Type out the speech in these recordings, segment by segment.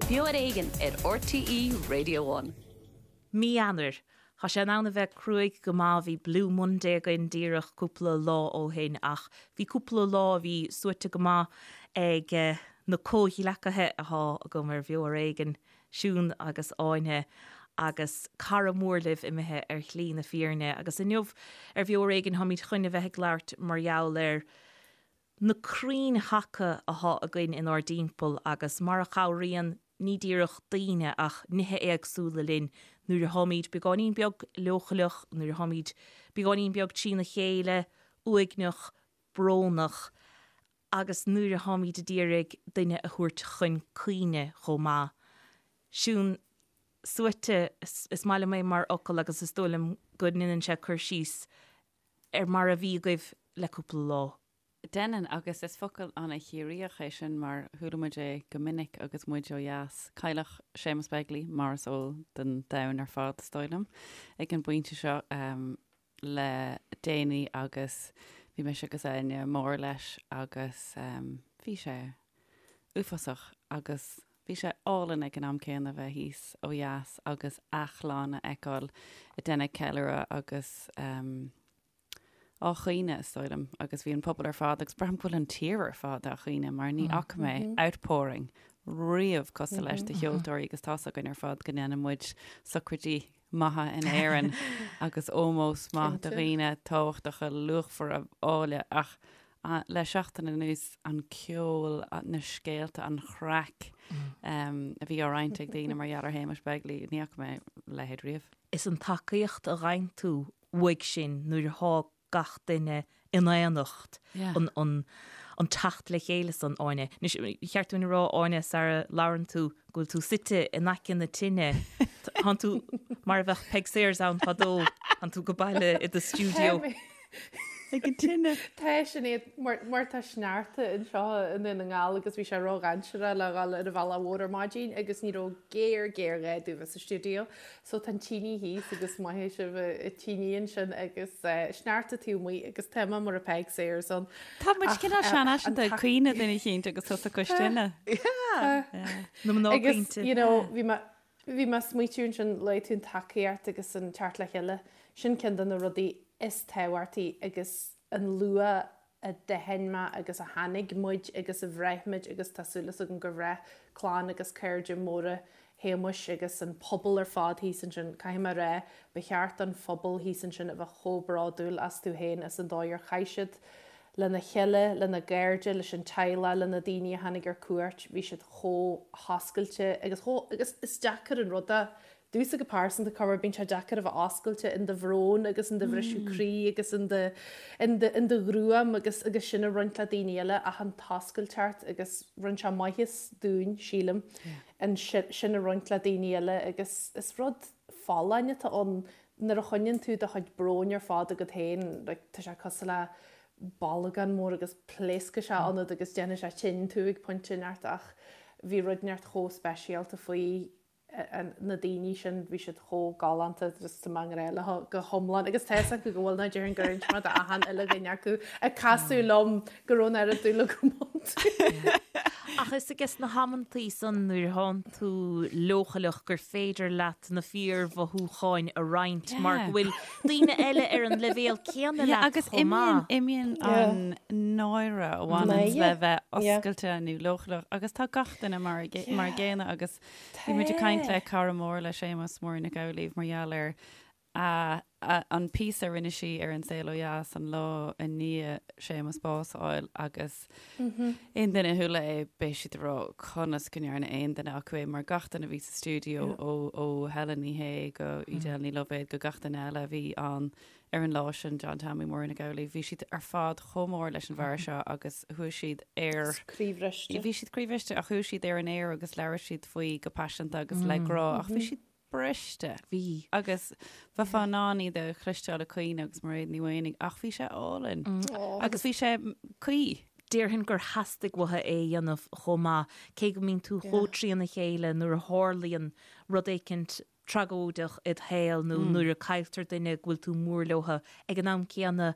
Beo ar Éigean ar RTÉ Radio One. Mí Eanáir. Tá sé in ann a bheith cruaidh go maith, bhí Blue Monday againn díreach cúpla lá ó shin ach bhí cúpla lá a bhí suaite go maith ag na comhghleacaithe athá agam ar Bheo ar Éigean, Siún agus Áine agus cara mór libh imithe ar shlí na fírinne agus inniu ar Bheo ar Éigean táimid chun a bheith ag labhairt mar gheall ar na crainn thaca athá againn inár dtimpeall agus mar a chabhraíonn ní díreach daoine ach nithe éagsúla linn nuair atháimid beagáinín beag leochaileach, nuair atháimid beagáinín beag trína chéile, uaigneach, brónach agus nuair atháimid ag iarraidh duine a thabhairt chun cuimhne chomh maith. Siún, suaite, is maith liom é mar fhocal agus is dóigh liom go ndéanann sé cur síos ar mar a bhí agaibh le cúpla lá. Déanann, agus is focal an-Chiarraíoch é sin mar chuala muid é go minic agus muid ó dheas. Cailleadh Séamus Begley, mar is eol don domhan ar fad, is dóigh liom, ag an bpointe seo le déanaí agus bhí mise agus Áine mór leis agus bhí sé uafásach agus bhí sé álainn ag an am céanna bheith thíos ó dheas agus a chlann a fheiceáil ag déanamh ceiliúradh agus á chaoineadh, is dóigh liom, agus bhí an pobal ar fad, agus braithim go bhfuil an tír ar fad á chaoineadh mar ní fhaca mé outpouring riamh cosúil leis de cheoltóirí agus tá's againn ar fad go ndéanann muid socraidí maithe in Éirinn agus ómós maith do dhaoine tábhachtacha luachmhara áille ach le seachtain anuas an ceol, na scéalta, an chraic a bhí á roinnt ag daoine mar gheall ar Shéamus Begley, ní fhaca mé a leithéid riamh. Is an tacaíocht a fhaigheann tú uaidh sin nuair atá gach duine in aonacht, an an teacht le chéile san, Áine. Anois, ba cheart dúinn a rá, Áine, sara labhrann tú, go bhfuil tú suite in aice na tine. Tánn tú mar a bheadh Peig Sayers ann fadó, tánn tú go baile i do stiúideo. Ag an tine. Tá Sinéad, mar mar tá sneachta anseo i nDún na nGall agus bhí sé ródhainséarach le dhul ar an bhealach mhór ar maidin agus ní raibh géar géarghá domh bheith sa stiúideo. So tá an tine thíos agus maith sibh an tine ansin agus sneachta taobh amuigh agus tá mé mar a Peig Sayers ann. Tá muid cineál seanfhaiseanta ag caoineadh duine eicínt agus tusa cois tine. Na mná Agus caointe. you know bhí mé bhí mé ag smaoitiú ansin luaigh tú an tacaíocht agus an teacht le chéile. Sin ceann de na rudaí is tábhachtaí agus an luach a d'aithin mé agus a tháinig muid agus a bhraith muid agus tá súil agam gur bhraith clann agus cairde móra Shéamuis agus an pobal ar fad thíos ansin, caithfidh mé a rá, ba cheart don phobal thíos ansin a bheith chomh bródúil astu féin as an dóigh ar chaith siad lena chéile, lena gcairde, leis an teaghlach, le na daoine a tháinig ar cuairt, bhí siad chomh hoscailte agus chomh, agus is deacair an rud é Domhsa go pearsanta, corruair bíonn sé deacair a bheith oscailte in do bhrón agus in do bhriseadh croí agus in do, in do, in do ghruaim agus, agus sin a roinnt le daoine eile ach an t-oscailteacht agus rinne sé maitheas dúinn, sílim, an sin a roinnt le daoine eile agus is rud folláin atá ann nuair a choinníonn tú do chuid bróin ar fad agat féin, like, tá sé cosúil le bolgán mór agus pléascfaidh sé ionat agus déanfaidh sé tinn tú ag pointe inteacht ach bhí rud inteacht chomh speisialta faoi na daoine sin, bhí siad chomh galánta, just tá mé i ngrá leo go hiomlán agus tá fhios acu go bhfuil ná déarfainn gur inis mé d'achan uile dhuine acu ag casadh liom go raibh an oiread dúil agam iontu. Ach is ages na hamantaí san nuair atánn tú leochaileach gur féidir leat na fíormhothúcháin a roinnt mar go bhfuil daoine eile ar an leibhéal céanna leat Agus chomh maith. imíonn an náire a bhaineanns le bheith oscailte nó leochaileach agus tá gach duine mar a gcéanna agus Bhí muid ag caint le cara mór le Séamus, Máirín Nic Amhlaoibh, mar gheall ar an píosa a rinne sí ar An Saol Ó Dheas an lá i ndiaidh Séamus bás a fháil agus aon duine a chuala é beidh siad ag rá conas go ndearna aon duine acu é mar gach duine a bhí sa stiúideo ó ó Helen Ní Shé go Edel Ní Loibhéad go gach duine eile a bhí ann ar an lá sin, John Tommy, Máirín Nic Amhlaoibh, bhí siad ar fad chomh mór leis an bhfear seo agus chuaigh siad ar. Croíbhriste. Bhí siad croíbhriste ach chuaigh siad ar an aer agus labhair siad faoi go paiseanta agus le grá ach bhí siad briste. Bhí. Agus bheifeá in ann iad a chloisteáil ag caoineadh agus Mairéad Ní Mhaonaigh ach bhí sé álainn. Agus bhí sé cuí. Déarfainn gur theastaigh uathu é a dhéanamh chomh maith, cé go mbíonn tú chomh trína chéile nuair a tharlaíonn rud éicint tragóideach id shaol nó nuair a cailltear duine go bhfuil tú mór leotha, ag an am céanna.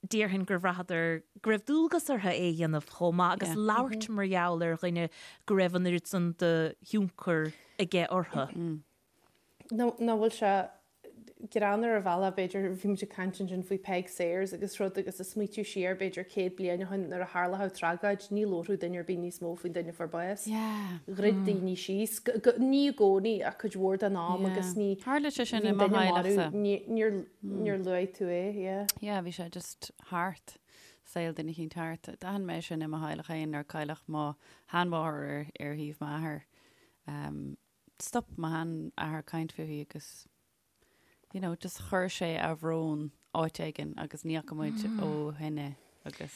Déarfainn gur bhraitheadar go raibh dualgas orthu é a dhéanamh chomh maith agus labhairt mar gheall ar dhuine go raibh an oiread san de thionchar aige orthu. Nach bhfuil sé greannmhar ar bhealach, b'fhéidir, bhí muid ag caint ansin faoi Peig Sayers agus rud agus ag smaoitiú siar b'fhéidir 100 bliain ó shin nuair a tharlódh tragóid, ní labharfadh duine ar bith níos mó faoin duine a fuair bás. Dhruid daoine síos, ní i gcónaí ach cuid mhór den am agus ní, Tharla sé sin i mo theaghlachsa. Níor Níor luaigh tú é, yeah. Yeah, bhí sé just thart, saol duine eicínt thart. D'aithin mé sin i mo theaghlach féin nuair a cailleadh mo sheanmháthair ar, ar thaobh m'athar. Um, stop mo sheanathair caint fúithi agus, you know, just chuir sé a bhrón áit éigin agus ní fhaca muid ó shin é agus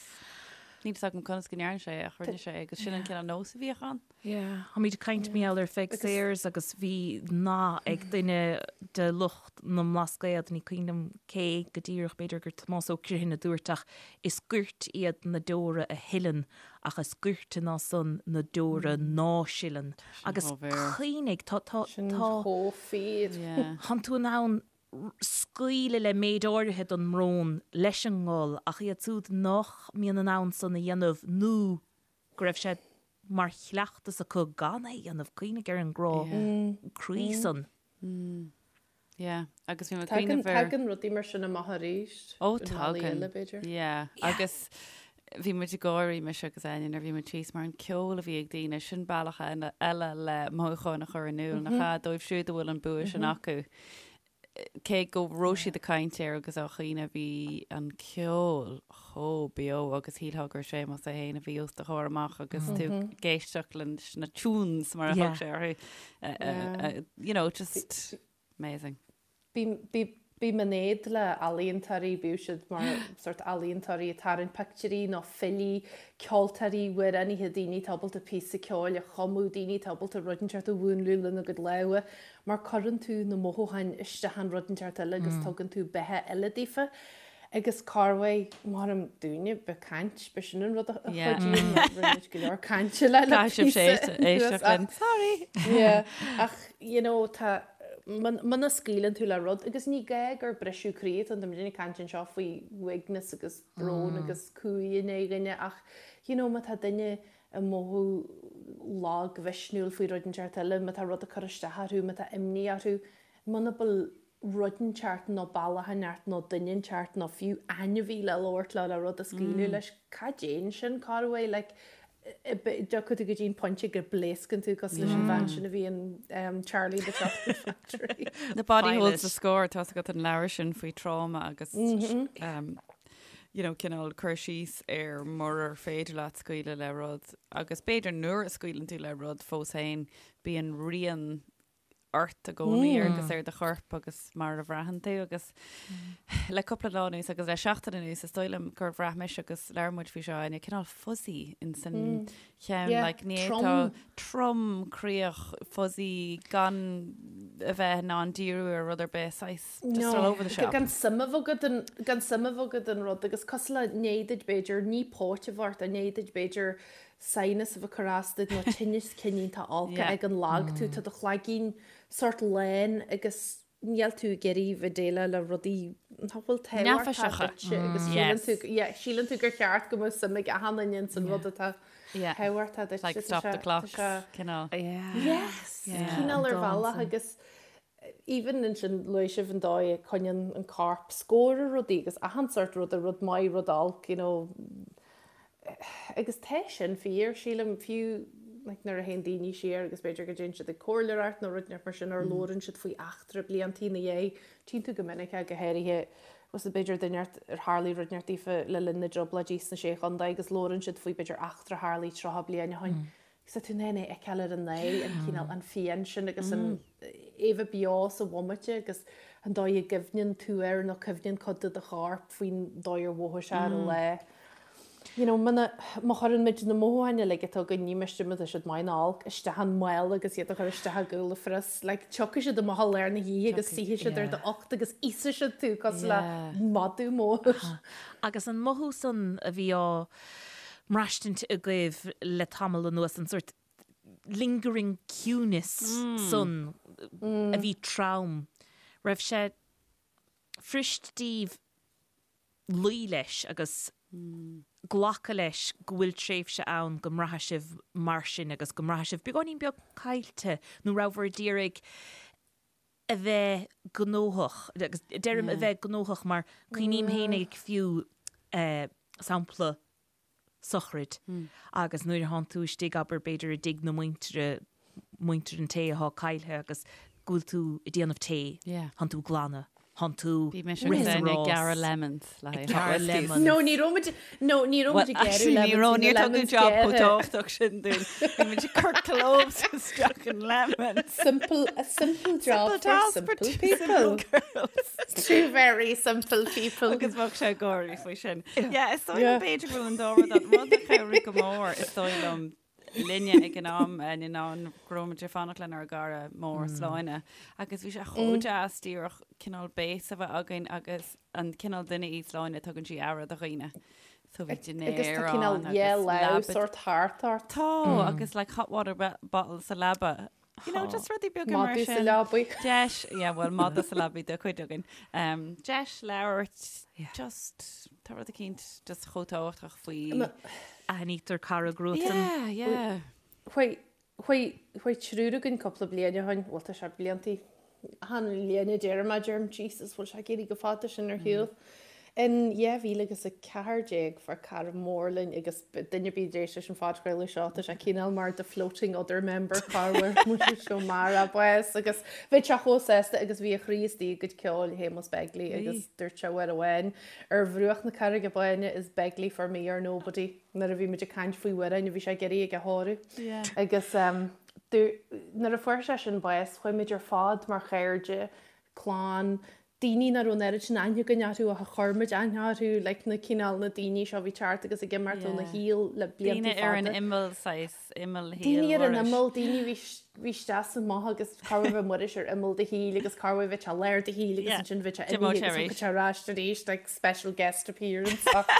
níl fhios agam conas go ndearna sé ach rinne sé agus sin an cineál nós a bhíodh ann. Yeah. Táimid ag caint mar gheall ar Pheig Sayers agus bhí nath ag duine de lucht na mBlascaod, ní cuimhin liom cé go díreach, b'fhéidir gur Tomás Ó Criomhthain a dúirt ach is goirt iad na deora a shileann ach is goirte ná san na deora ná sileann. Agus cuimhnigh, tá, tá, Sin tá, chomh fíor. Yeah. Tánn tú in ann scaoileadh le méid áirithe den mbrón leis an ngol ach iad siúd nach mbíonn in ann san a dhéanamh nó go raibh sé mar chleachtas acu gan é a dhéanamh, cuimhnigh ar an gcrá croí san. Yeah, agus bhí mé ag cuimhneamh ar. Tagann rudaí mar sin amach arís. Ó, tagann. B'fhéidir. Yeah, agus bhí muid ag gáirí, mise agus Áine, nuair a bhí muid thíos, mar an ceol a bhí ag daoine, sin bealach eile le mothúcháin a chur in iúl, nach ea, dóibh siúd a bhfuil an bua sin acu. Cé go raibh siad ag caint air agus á chaoineadh, bhí an ceol chomh beo agus shílfeá gur Séamus é féin a bhí os do chomhair amach agus tú ag éisteacht leis na tunes mar a thug sé orthu. You know, just amazing. Bím in éad le ealaíontóirí, bíodh siad mar sort ealaíontóirí ag tarraingt pictiúirí nó filí, ceoltóirí, amhránaithe, daoine atá ábalta píosa ceoil a chumadh, daoine atá ábalta rud inteacht a mhúnlú lena gcuid lámha. Mar cuireann tú na mothúcháin isteach in rud inteacht eile agus tugann tú beatha eile daofa. Agus corruair, maram dúinne, b'é caint, b'é sin an rud a chuidíonn, mar rinne muid go leor cainte le le píosa anuas ach, sorry! Yeah, ach, you know, tá, muna scaoileann tú le rud, agus ní gá gur briseadh croí atá ann, tá muid ag caint anseo faoi uaigneas agus brón agus cumha i ndiaidh dhuine ach, you know, má tá duine ag mothú lagmhisniúil faoi rud inteacht eile, má tá rud ag cur isteach orthu, má tá imní orthu, muna bhfuil rud inteacht nó bealach inteacht nó duine inteacht nó fiú ainmhí le labhairt leo le rud a scaoileadh leis, cá dtéann sin, corruair, like, dtiocfaidh tú go dtí an pointe go bpléascann tú cosúil leis an bhean sin a bhí in Charlie and the Chocolate Factory. The Body Holds the Score, tá agat an leabhar sin faoi tráma agus you know, cineál cur síos ar murar féidir leat scaoileadh le rud agus b'fhéidir nuair a scaoileann tú le rud fós féin bíonn rian ort i gcónaí agus ar do chorp agus mar a bhraitheann tú agus le cúpla lá anuas agus le seachtain anuas is dóigh liom gur bhraith mise agus labhair muid faoi seo Áine cineál fuzzy in san cheann like ní tá trom croíoch fuzzy gan a bheith in ann díriú ar rud ar bith saghas just all over the shop. Gan suim a bheith agat in gan suim a bheith agat in rud agus cosúil le i ndiaidh duit b'fhéidir ní póit a bheith ort i ndiaidh duit b'fhéidir sinus a bheith ag cur as duit nó tinneas cineál olc ag an lag tú, tá do chloigeann sórt lán agus níl tú ag iarraidh bheith déileáil le rudaí nach bhfuil tábhachtach duitse agus síleann tú, yeah, síleann tú gur cheart go mbeadh suim ag achan duine ins an rud atá tábhachtach duit. Like stop the clocks, cineál. Yes, cineál ar bhealach agus even ansin luaigh sibh an dóigh a coinníonn an corp scór ar rudaí agus achan sórt ruda, rud maith, rud olc, you know. Agus tá sin fíor, sílim, fiú like nuair a théann daoine siar agus b'fhéidir go dtéann siad ag comhairleoireacht nó rud inteacht mar sin or labhrann siad faoi eachtra bliantaí ina dhiaidh, tchíonn tú go minic é, go háirithe, bhfuil b'fhéidir duine ar tharlaigh rud inteacht daofa le linn na dtrioblóidí sna Sé Chontae agus labhrann siad faoi b'fhéidir eachtra a tharlaigh 30 bliain ó shin. Agus tá tú in ann é a fheiceáil ar a n-aghaidh, an cineál, an phian sin agus an é bheith beo sa bhomaite agus an dóigh a gcuimhneann tú air nó cuimhneann cuid de do chorp faoin dóigh ar mhothaigh sé ar an lá. You know, muna, má chuireann muid na mothúcháin uilig atá againn, ní miste má tá siad maith nó olc, isteach in mála agus iad a chur isteach i gcúl an phrios, like, tiocfaidh siad amach i lár na hoíche agus suífidh siad ar d'ucht agus íosfaidh siad tú cosúil le madadh mór. Agus an mothú san a bhí á mbraistint agaibh le tamall anuas, an sórt lingering ciúnas san a bhí trom, raibh sé fuirist daoibh. Luí leis agus glacadh leis go bhfuil tréimhse ann go mbraithfidh sibh mar sin agus go mbraithfidh sibh beagáinín beag caillte nó rabhabhair ag iarraidh a bheith gnóthach, agus deirim a bheith gnóthach mar cuimhním fhéinig fiú sampla sochraid agus nuair a thánn tú istigh, abair, b'fhéidir i dtigh na muintire, muintir an té athá caillthe agus go bhfuil tú ag déanamh tae, thánn tú ag glanadh, thánn tú Bhí mise agus rith is Áine ag rás, gearradh lemons le ag haghaidh hot gearradh whiskies. lemons. No, ní raibh muid, no, ní raibh Well, muid ag gearradh actually, ní lemons, raibh, bhí na níor tugadh lemons job chomh gearrtha. tábhachtach sin dúinn. Bhí muid ag cur cloves isteach in lemons. Simple, a simple job Simple for task for simple two people. simple girls. Two very simple people. Agus bheadh sé ag gáirí faoi sin. Yeah, is dóigh liom Yeah. b'fhéidir go bhfuil an dá rud ann. Rud a chabhraigh go mór is dóigh liom linne ag an am eh, ná go raibh muid ag fanacht lenár gcara mór Sláine agus bhí sé chomh deas díreach cineál base a bheith againn agus an cineál duine í Sláine tugann sí aire do dhaoine. So bhí Agus tá dinnéar cineál ann yeah, agus leamh leaba sort thart ort. Tá agus like hot water bottle sa leaba. You know, just rudaí beaga mar Madadh sa sin. leabaidh. Deis, yeah, well, madadh sa leabaidh do chuid againn. Um, deis labhairt, just, tá rud eicínt just chomh tábhachtach faoi. Aithnítear cara i gcruatan. Yeah, yeah. Chuaigh, chuaigh, chuaigh triúr againn cúpla bliain ó shin, bhuel tá sé bliantaí, achan bhliain a deirim é, deirim Jesus, bhfuil sé ag éirí chomh fada sin ar shiúl. In 2014 fuair cara mór linn agus duine ar bith a d'éist leis an phodchraoladh seo, tá sé cineál mar the floating other member corruair muid seo mar a bás agus bhí sé chomh sásta agus bhí a chroí istigh i gcuid ceoil Shéamus Begley agus dúirt sé uair amháin ar bhruach na Carraige Báine is Begley for me or nobody nuair a bhí muid ag caint faoi amhráin a bhí sé ag iarraidh ag a thóradh agus nuair a fuair sé sin bás chuaigh muid ar fad mar chairde, clann, daoine nach raibh an oiread sin aithne againn orthu ach a chuir muid aithne orthu, like na cineál na daoine seo a bhí teacht agus ag imeacht óna Yeah. shaol le blianta Daoine ar an fada. imeall saghas, imeall shaol Daoine ar an Mhuiris. imeall, daoine a bhí bhí isteach is amach agus corruair bheadh Muiris ar imeall do shaoil agus corruair bheadh sé i lár do shaoil agus Yeah. ansin bheadh sé D'imeodh imithe sé agus arís. thiocfadh sé ar ais arís, like special guest appearance ach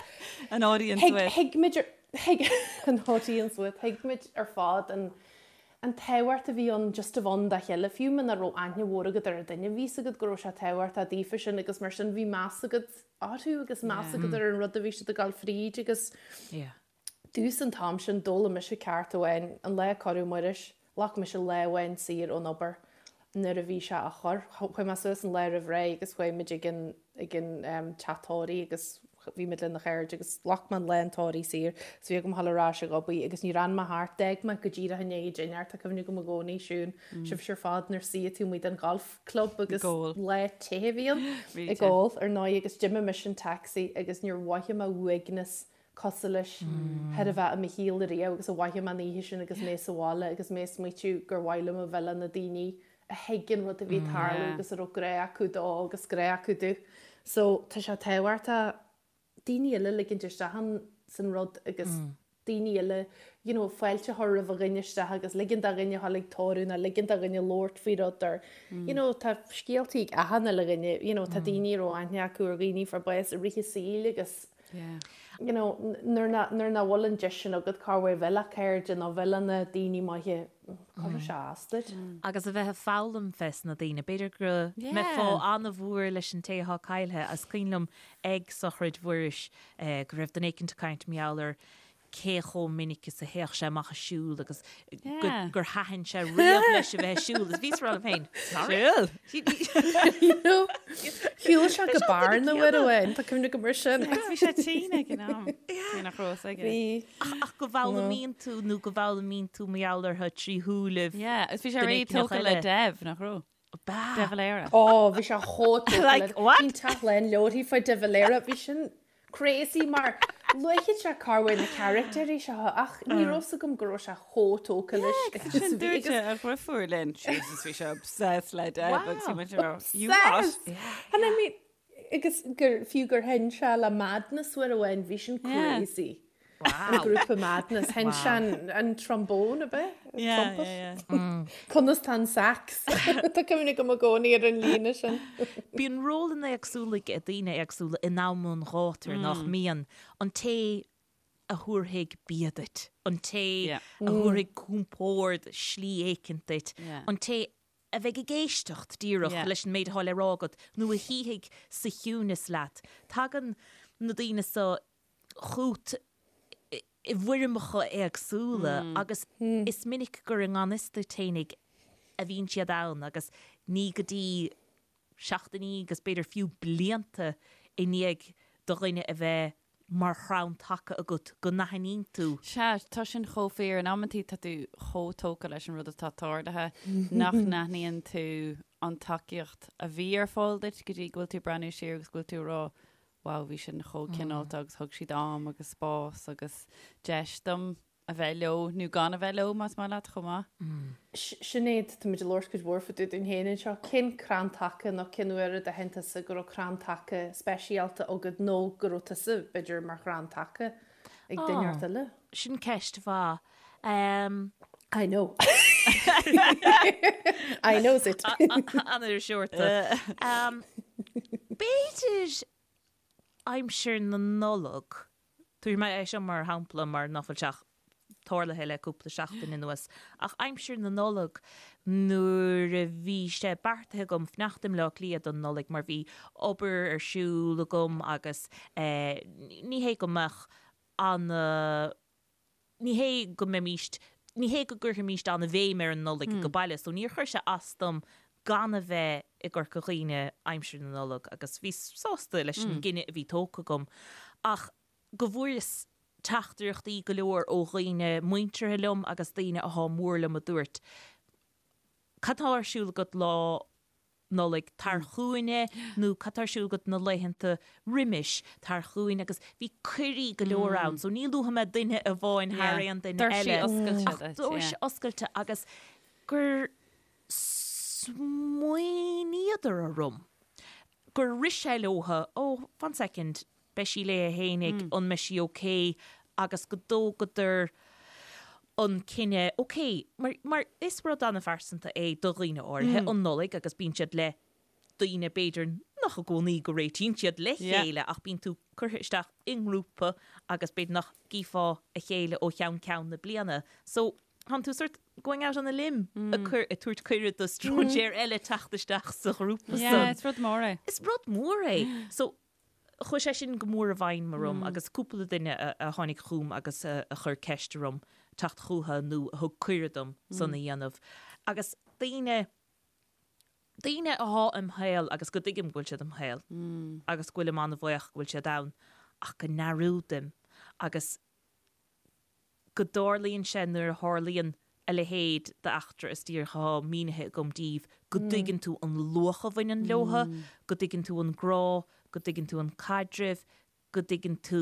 An audience thuig with. thuig muid ar thuig an audience with, thuig muid ar fad an An tábhacht a bhí ann just a bheith ann dá chéile, fiú muna raibh aithne mhór agat ar an duine, bhí 'fhios agat go raibh sé tábhachtach daofa sin agus mar sin bhí meas agat orthu agus meas agat ar an rud a bhí siad ag dul fríd agus domhsa an t-am sin d'fhoghlaim mise ceacht amháin, an lá a cuireadh Muiris, ghlac mise lá amháin saor ón obair nuair a bhí sé á chur, chuaigh mé suas an lá roimh ré agus chuaigh muid ag an ag an teach tórraimh agus bhí muid lena chairde agus ghlac mé an lá an tórraimh saor so bhí agam a dhul ar ais ag obair agus níor fhan mé thart, d'fhág mé go díreach i ndiaidh dinnéir, tá cuimhne agam i gcónaí, Siún, sibhse ar fad nuair suíodh tú amuigh den golf club agus lá te a bhí ann ag ól ar ndóigh agus d'imigh mise in taxi agus níor mhothaigh mé uaigneas cosúil leis chóir a bheith i mo shaol ariamh agus a mhothaigh mé an oíche sin agus mé sa bhaile agus mé ag smaoitiú gur mhaith liom a bheith le na daoine a thuig an rud a bhí ag tarlú agus a raibh grá acu dó agus grá acu di. So tá sé tábhachtach daoine eile a ligint isteach in san rud agus daoine eile you know fáilte a chur roimh a dhuine isteach agus ligean do dhuine a dhul ag tórramh nó ligean do dhuine labhairt faoi rud or you know tá scéaltaí ag achan uile dhuine you know tá daoine a raibh aithne acu ar dhaoine a fuair bás i rith a saoil agus you know, nuair nach, nuair nach bhfuil an deis sin agat corruair bheith le cairde nó bheith le na daoine maithe, cuirfidh sé as duit. Agus a bheith ag foghlaim fés na daoine. B'fhéidir go mbeifeá an-mhór leis an té atá caillthe. Is cuimhin liom ag sochraid Mhuiris go raibh duine éicint ag caint mar gheall ar cé chomh minic is a théadh sé amach ag siúl agus gur thaitin sé riamh leis a bheith ag siúl. Is bhíos ag rá liom féin, Siúl? Shiúil sé go Bearna uair amháin, tá cuimhne agam air sin. Bhí sé tinn ag an am, cé nach raibh fhios aige. Bhí. Ach go bhfoghlaimíonn tú nó go bhfoghlaimíonn tú mar gheall orthu trí shúilibh Yeah, agus bhí sé réidh tógtha le Dev, nach raibh? Ba. De Valera. Ó, bhí sé chomh tógtha le. Like, what? Bhí an teach lán leabharthaí faoi De Valera, bhí sin crazy mar luaigh sé corruair na caractéirí seo ach ní raibh fhios agam go raibh sé chomh tógtha leis. Yeah, agus sin dúirt a dheirfiúr linn, Jesus, bhí sé obsessed le Dev agus bhí muid ag rá, you what? Obsessed! And I mean, Agus gur, fiú gur sheinn sé le Madness uair amháin, bhí sin crazy. An grúpa Madness, sheinn sé an, an trombone, ab ea? Yeah, Trumpet? yeah, yeah. Conas tá an sax? Tá cuimhne agam i gcónaí ar an líne sin. Bíonn rólanna éagsúla ag daoine éagsúla in am an ghátair, nach mbíonn? An té a thabharfaidh bia duit, an té a thabharfaidh compord slí éicint duit, an té a bheidh ag éisteacht díreach leis an méid atá le rá agat nó a shuífidh sa chiúnas leat. Tagann na daoine so chút i bhfoirmeacha éagsúla agus is minic gur i ngan fhios duit fhéinig a bhíonn siad ann agus ní go dtí seachtainí agus b'fhéidir fiú blianta i ndiaidh do dhuine a bheith mar chrann taca agat go n-aithníonn tú. Sea, tá sin chomh fíor. In amantaí tá tú chomh tógtha leis an rud atá tarlaithe nach n-aithníonn tú an tacaíocht a bhí ar fáil duit go dtí go bhfuil tú ag breathnú siar agus go bhfuil tú ag rá wow, bhí sin chomh cineálta agus thug siad am agus spás agus deis dom a bheith leo nó gan a bheith leo más maith leat chomh maith. Sinéad, tá muid ag labhairt cuid mhór fá dtaobh dúinn féin anseo. Cén crann taca nó cén uair a d'aithin tusa go raibh crann taca speisialta agat nó go raibh tusa, b'fhéidir, mar chrann taca ag duine inteacht eile? Sin ceist mhaith. I know. I knows it. An-iriseoirta. B'fhéidir aimsir na Nollag. Tabharfaidh mé é seo mar shampla mar nach bhfuil sé ach tarlaithe le cúpla seachtain anuas, ach aimsir na Nollag nuair a bhí sé beartaithe agam fanacht i mBleá Cliath don Nollaig mar bhí obair ar siúl agam agus ní hé go mbeadh ana ní hé go mbeimíst, ní hé go gcuirfimíst an-bhéim ar an Nollaig age baile, so níor chuir sé as dom gan a bheith i gCorca Dhuibhne aimsir na Nollag agus bhíos sásta leis an gcinneadh a bhí tógtha agam. Ach go bhfuaireas teachtaireachtaí go leor ó dhaoine muinteartha liom agus daoine athá mór liom a dúirt, cad tá ar siúl agat lá Nollaig, tar chugainne nó cad tá ar siúl agat na laethanta roimis, tar chugainn agus bhí cuirí go leor ann so ní luafaidh mé duine amháin thar aon duine eile ach doirse oscailte agus gur smaoiníodar orm, gur rith sé leotha, oh, fan soicind, beidh sí léi fhéinig, an mbeidh sí ok agus go dtógadar an cinneadh, ok, mar, mar is rud an-phearsanta é do dhaoine áirithe, an Nollaig agus bíonn siad le daoine b'fhéidir nach i gcónaí go réitíonn siad le chéile ach bíonn tú curtha isteach i ngrúpa agus b'fhéidir nach gcífeá a chéile ó cheann ceann na bliana. So, tánn tú sort going out on a limb ag cur, ag tabhairt cuireadh do stróinséir eile teacht isteach sa ghrúpa san. Yeah, is rud mór é. Is rud mór é. So, Chuaigh sé sin go mór i bhfeidhm orm agus cúpla duine a tháinig chugam agus a chuir ceist orm teacht chucu nó a thug cuireadh dom san a dhéanamh. Agus daoine, daoine athá im shaol agus go dtuigim go bhfuil siad im shaol agus go bhfuilim an-bhuíoch go bhfuil siad ann ach go ndearúdaim agus go dtarlaíonn sé nuair a tharlaíonn a leithéid d'eachtra is díreach athá mínithe agam daoibh, go dtuigeann tú an luach a bhaineann leotha, go dtuigeann tú an grá, go dtuigeann tú an caidreamh, go dtuigeann tú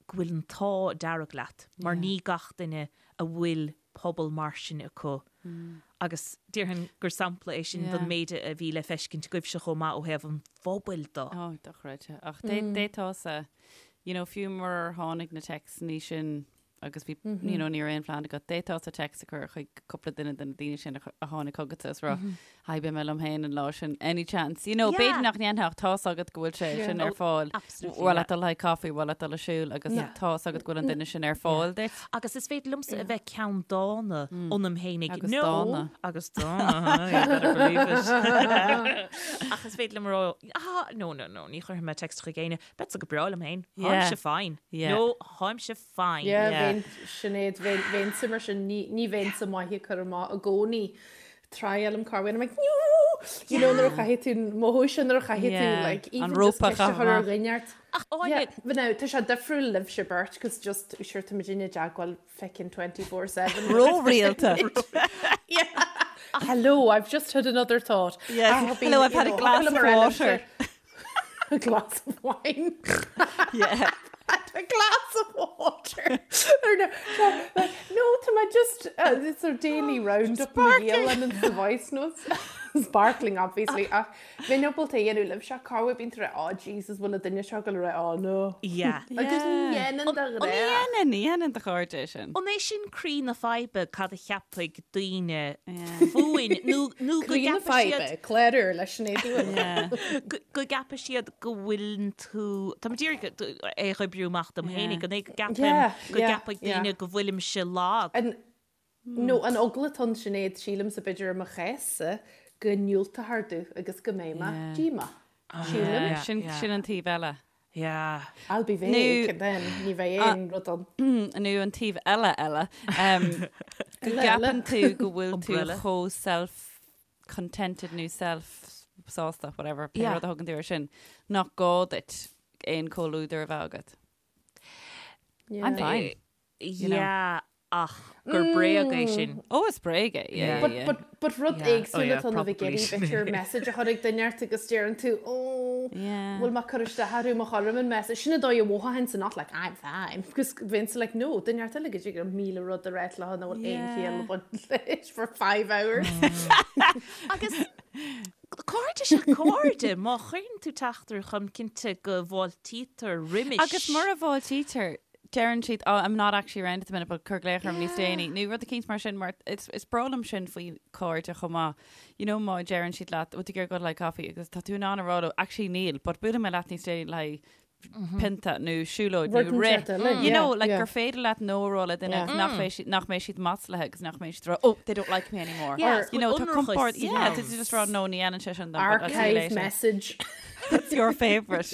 go bhfuil an t-ádh dearg leat, mar ní gach duine a bhfuil pobal mar sin acu. Agus déarfainn gur sampla é sin don méid a bhí le feiscint agaibhse chomh maith ó thaobh an phobail de. Ó, dochreidte. Ach d'fhéadfása, you know, fiú murar tháinig na téacsanna sin agus bhí, you know, ní raibh aon phlean agat, d'fhéadfása téacs a chur chuig cúpla duine de na daoine sin a tháinig chugatsa is rá, Hi, beidh mé liom féin an lá sin, any chance? You know, b'fhéidir nach ndéanfá ach tá's agat go bhfuil sé sin ar fáil. Absolutely, Bhfuil leat dul le haghaidh coffee, bhfuil leat dul ag siúl agus tá's agat go bhfuil an duine sin ar fáil duit. Agus is féidir liomsa a bheith ceanndána ionam fhéinig. Agus dána. Agus dána, you better believe it. Ach is féidir liom a rá, ah, no, no, no, ní chuirfidh mé text chuig éinne, beadsa go breá liom féin, tháimse fine. No, tháimse fine. Yeah, bheinn, Sinéad, bheinnse mar sin, ní bheinnse maith ag cur amach i gcónaí. Triailim corruair, I'm like, no! You know, nuair a chaithfidh tú, mothú sin nuair a chaithfidh tú, like, even just ceist a chur ar dhuine ort. Ach Áine. But now, tá sé difriúil libhse beirt, cos just, sure, tá muid i dteagmháil feckin' 24/7. Ró-rialta. Yeah. Hello, I've just had another thought. Yes. Hello, I've had a glass of water. A glass of wine. Yeah. Had a glass of water. Or no, no, like, no, tá mé just uh, it's a daily round-up na Gaelainne and the voice notes. Sparkling, obviously. Ach bheinn ábalta a dhéanamh libhse corruair bíonn tú ag rá, oh Jesus, bhfuil an duine seo ag rá, oh no. Yeah. Agus ní dhéanann do An ghrá. dhéanann, ní dhéanann do chairde é sin. An é sin croí na faidhbe cad a cheapfaidh daoine fúinn nó nó go Croí na gceapfaidh siad faidhbe, clár úr le Sinéad Uí Yeah. go go gceapfaidh siad go bhfuileann tú Tá mé d'iarraidh é a oibriú amach dom fhéinig, an é go gceapaim Yeah, go yeah, gceapfaidh yeah. daoine go bhfuilimse lag. An, nó an eagla atá ann Sinéad, sílimse b'fhéidir i mo chás-sa go ndiúltófar domh agus go mbeidh mé Yeah. díomách. Sílim. Sin Yeah. sin an taobh eile. Yeah. I'll be vague and then ní bheidh aon rud ann. Nó an taobh eile eile. Go gceapann tú go bhfuil tú chomh self-contented nó self-sásta, whatever, pé rud a thugann tú air sin, nach gá duit aon comhluadar a bheith agat. I'm fine. Yeah, ach gur bréag é sin. Ó, is bréag é, yeah, But, yeah. but, but rud Yeah. Oh, éagsúil yeah, atá ann a bheith ag probably iarraidh sin. b'fhéidir message a chur ag duine ort agus deireann tú, oh, Yeah. bhfuil mé ag cur isteach orthu má chuirim an message. Sin an dóigh a mhothaíonn not like I'm fine. Because bheinnse like, no, duine ort eile go dtig liom 1000 rud a rá leo nach bhfuil aon Yeah. chiall ag baint leis for five hours. Agus cairde is ea cairde, má chuireann tú teachtaireacht chugam cinnte go bhfáiltítear roimis. Agus mura bhfáiltítear, deireann siad, oh, I'm not actually around at the minute, but cuir glaoch orm níos déanaí. Nó rud eicínt mar sin, mar is, is breá liom sin faoi cairde chomh maith. You know, má deireann siad leat, bhfuil tú ag iarraidh dul le haghaidh coffee, agus tá tú in ann a rá leo, actually níl, but buailfidh mé leat níos déanaí le haghaidh pionta nó siúlóid nó Rud rith. inteacht eile, You know, yeah, like yeah. gur féidir leat no a rá le duine agus nach mbeidh siad, nach mbeidh siad maslaithe agus nach mbeidh siad ag rá, oh, they don't like me anymore. Yeah, You know, tá ionracas compord, yeah, ann. tá tú just rá, no, ní dhéanann sé sin dom, but I'll see you Archive later. message. That's your favourite.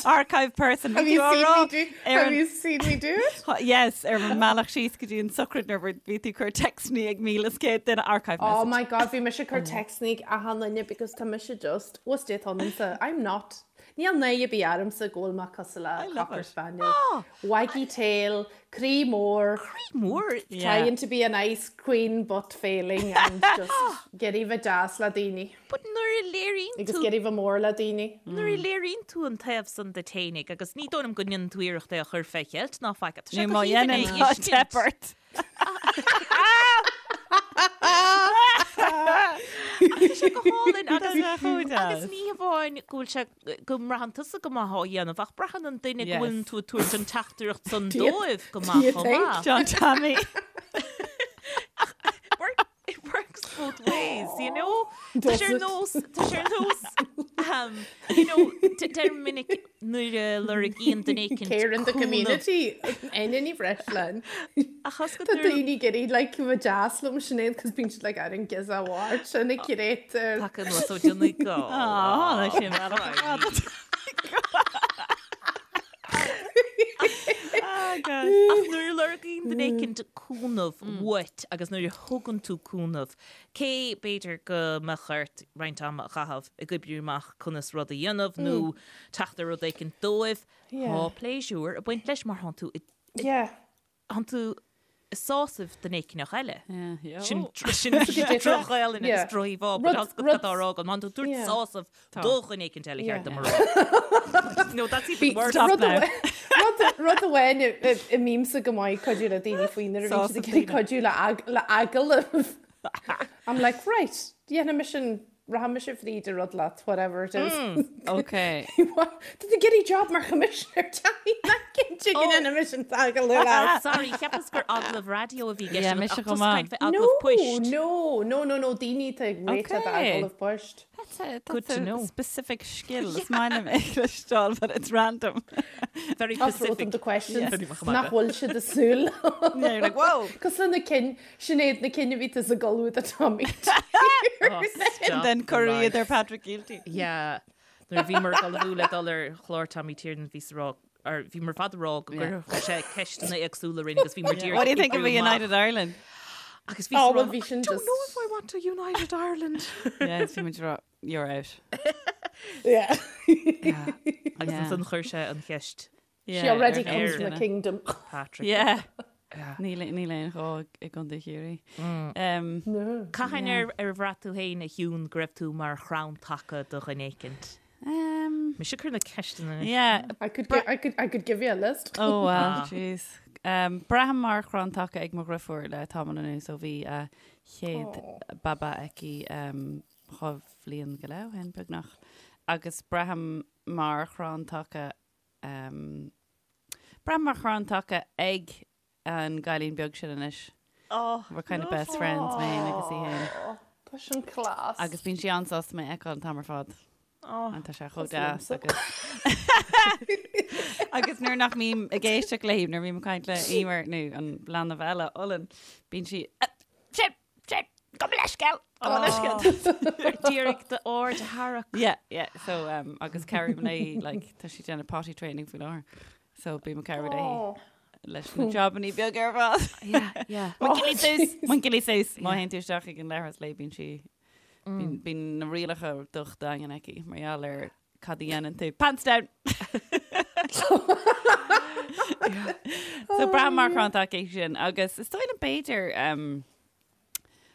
Archive person. Have you seen me do, have you seen me do it? Yes, ar an mbealach síos go dtí an sochraid nuair bhí tú ag cur téacsanna ag 1,100 duine archive message. Oh my god, bhí mise ag cur téacsanna ag achan duine because tá mise just, what's dé ionamsa? I'm not. Níl náire ar bith ormsa go bhfuil mé cosúil le cocker spaniel. Oh! Waggy tail, croí mór. Croí mór? Trying to be a nice queen but failing and just ag iarraidh bheith deas le daoine. But nuair a léiríonn Agus tú ag iarraidh bheith mór le daoine. Nuair a léiríonn tú an taobh san duit fhéinig, agus ní dóigh liom go ndéanann tú iarracht é a chur fé cheilt ná faic, tá sé Nó go má haoibhinn é dhéanann tá a fheiscint. teip ort. Tá sé go hálainn agus Tá sé chomh deas. agus ní hamháin go bhfuil sé go mbraitheann tusa go maith á dhéanamh ach braitheann an duine go Yes. bhfuileann tú ag tabhairt an teachtaireacht san Do you- dóibh go do maith you chomh think? maith. John Tommy. Work, it works both ways, you know? Tá Does sé ar it? nós, tá sé ar nós, um, you know, deir minic nuair a lorgaíonn duine éicint Care in the cúnamh. community. Aine Ní Bhreisleáin. Ach as go Tá nuair- daoine ag iarraidh like bheith deas liom Sinéad cos bíonn siad like I don't give a what and a curator. Taca anuas ó Donegal. Á, sin bealach ar fad. Ah, God. Ach nuair a lorgaíonn duine éicint cúnamh uait agus nuair a thugann tú cúnamh, cé b'fhéidir go mbeadh ort roinnt ama a chaitheamh ag oibriú amach conas rud a dhéanamh nó teacht ar rud éicint dóibh, tá pléisiúr ag baint leis mar thánn tú i thánn tú ag sásamh duine éicneach eile. Sin sin droch-Ghaelainn agus droch-íomhá, but tá go tá rá agam, thánn tú ag tabhairt sásamh do dhuine éicint eile ceart dom a rá. No, that's even worse. Stop now. Rud amháin a mbímse go maith ag cuidiú le daoine faoi nuair a bhíonn siad ag iarraidh cuidiú le agallamh. I'm like, right, dhéanfaidh mise an, rachaidh mise fríd an rud leat, whatever it is. Ok. Tá tú ag iarraidh job mar choimisinéir teanga, nach cinnte go ndéanfaidh mise an t-agallamh leat. Sorry, cheapas gur agallamh raidió a bhí i gceist Yeah, agat, mise ach chomh tusa maith. ag caint fé agallamh poist. No, no, no, no, daoine atá ag réiteach Okay. agallamh poist. That's a, that's Good to a know. specific skill. Is maith liom é a chloisteáil, but it's random. Very I'll throw specific. them the questions Yeah. nach bhfuil siad ag súil. Yeah, you're like, whoa! Cosúil le na cinn, Sinéad na cinn a bhí tusa ag ullmhú do Tommy. Oh, And then cuireadh iad ar Patrick Kielty. Yeah. Nuair a bhíomar ag ullmhú le dul ar chlár Tommy Tiernan bhí sa rá or bhíomar ar fad ag rá go gcuirfeadh sé ceisteanna éagsúla orainn agus bhíomar díreach What do you think of a ag oibriú amach. United Ireland? Agus bhí Oh, sa well, rá, bhí sin I don't just- know if I want to United Ireland. Yeah, bhí muid ag rá, you're out. Yeah. Agus Yeah. ansan chuir sé an cheist Yeah, She already ar comes from duine. a kingdom. Patrick. Yeah. Níl níl aon ghá i gContae Chiarraí. Um, Cathain ar ar bhraith tú féin a Shiún go raibh tú mar chrann taca do dhuine éicint? um, Mise ag cur na ceisteanna anois. yeah. I could, gi- I could, I could give you a list. Oh well, jeez. Um, braithim mar chrann taca ag mo dheirfiúr le tamall anuas ó bhí a chéad baba aici um, dhá bhliain go leith ó shin beagnach. Agus braithim mar chrann taca um, braithim mar chrann taca ag an gcailín beag sin anois. Oh, We're kind of best friends, mé féin agus í féin. Tá sin class. Agus bíonn sí an-sásta mé a fheiceáil an t-am ar fad. Oh. An tá sé chomh Tá deas liomsa. agus agus nuair nach mbím ag éisteacht léi, nuair bhím ag caint le Emer nó an leanbh eile, Olann, bíonn sí, "Ah, sin, sin, Gabh mo leithscéal! Gabh mo leithscéal! D'iarraidh d'aird a tharrac. Yeah, yeah, so um, agus cabhraím léi, like, tá sí ag déanamh potty training faoi láthair. So bím ag cabhrú léi leis na jobannaí beaga ar fad. Yeah, yeah. Monkey suas, monkey suas. Má théann tú isteach ag an leithreas léi bíonn sí, bíonn bíonn na rialacha docht daingean aici mar gheall ar cad a dhéanann tú. Pants down! So braithim mar chrann taca é sin agus is dóigh liom b'fhéidir um,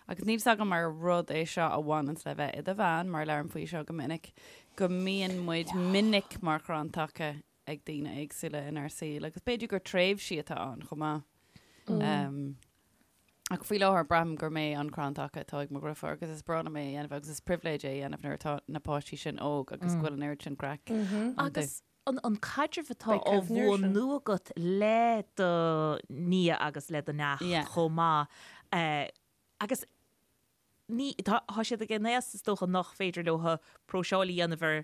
Agus níl 's agam ar rud é seo a bhaineanns le bheith i do bhean, mar labhraim faoi seo go minic, go mbíonn muid minic mar chrann taca ag daoine éagsúla inár saol agus b'fhéidir gur tréimhsí atá ann chomh maith. Um, ach faoi láthair braithim gur mé an crann taca atá ag mo dheirfiúr agus is breá liom é a dhéanamh agus is pribhléid é a dhéanamh nuair atá na páistí sin óg agus go bhfuil an oiread sin craic iontu. Agus an caidreamh atá á bhunú agat le do nia agus le do neacht chomh maith agus ní, tá siad ag an aos is dócha nach féidir leo próiseáil a dhéanamh ar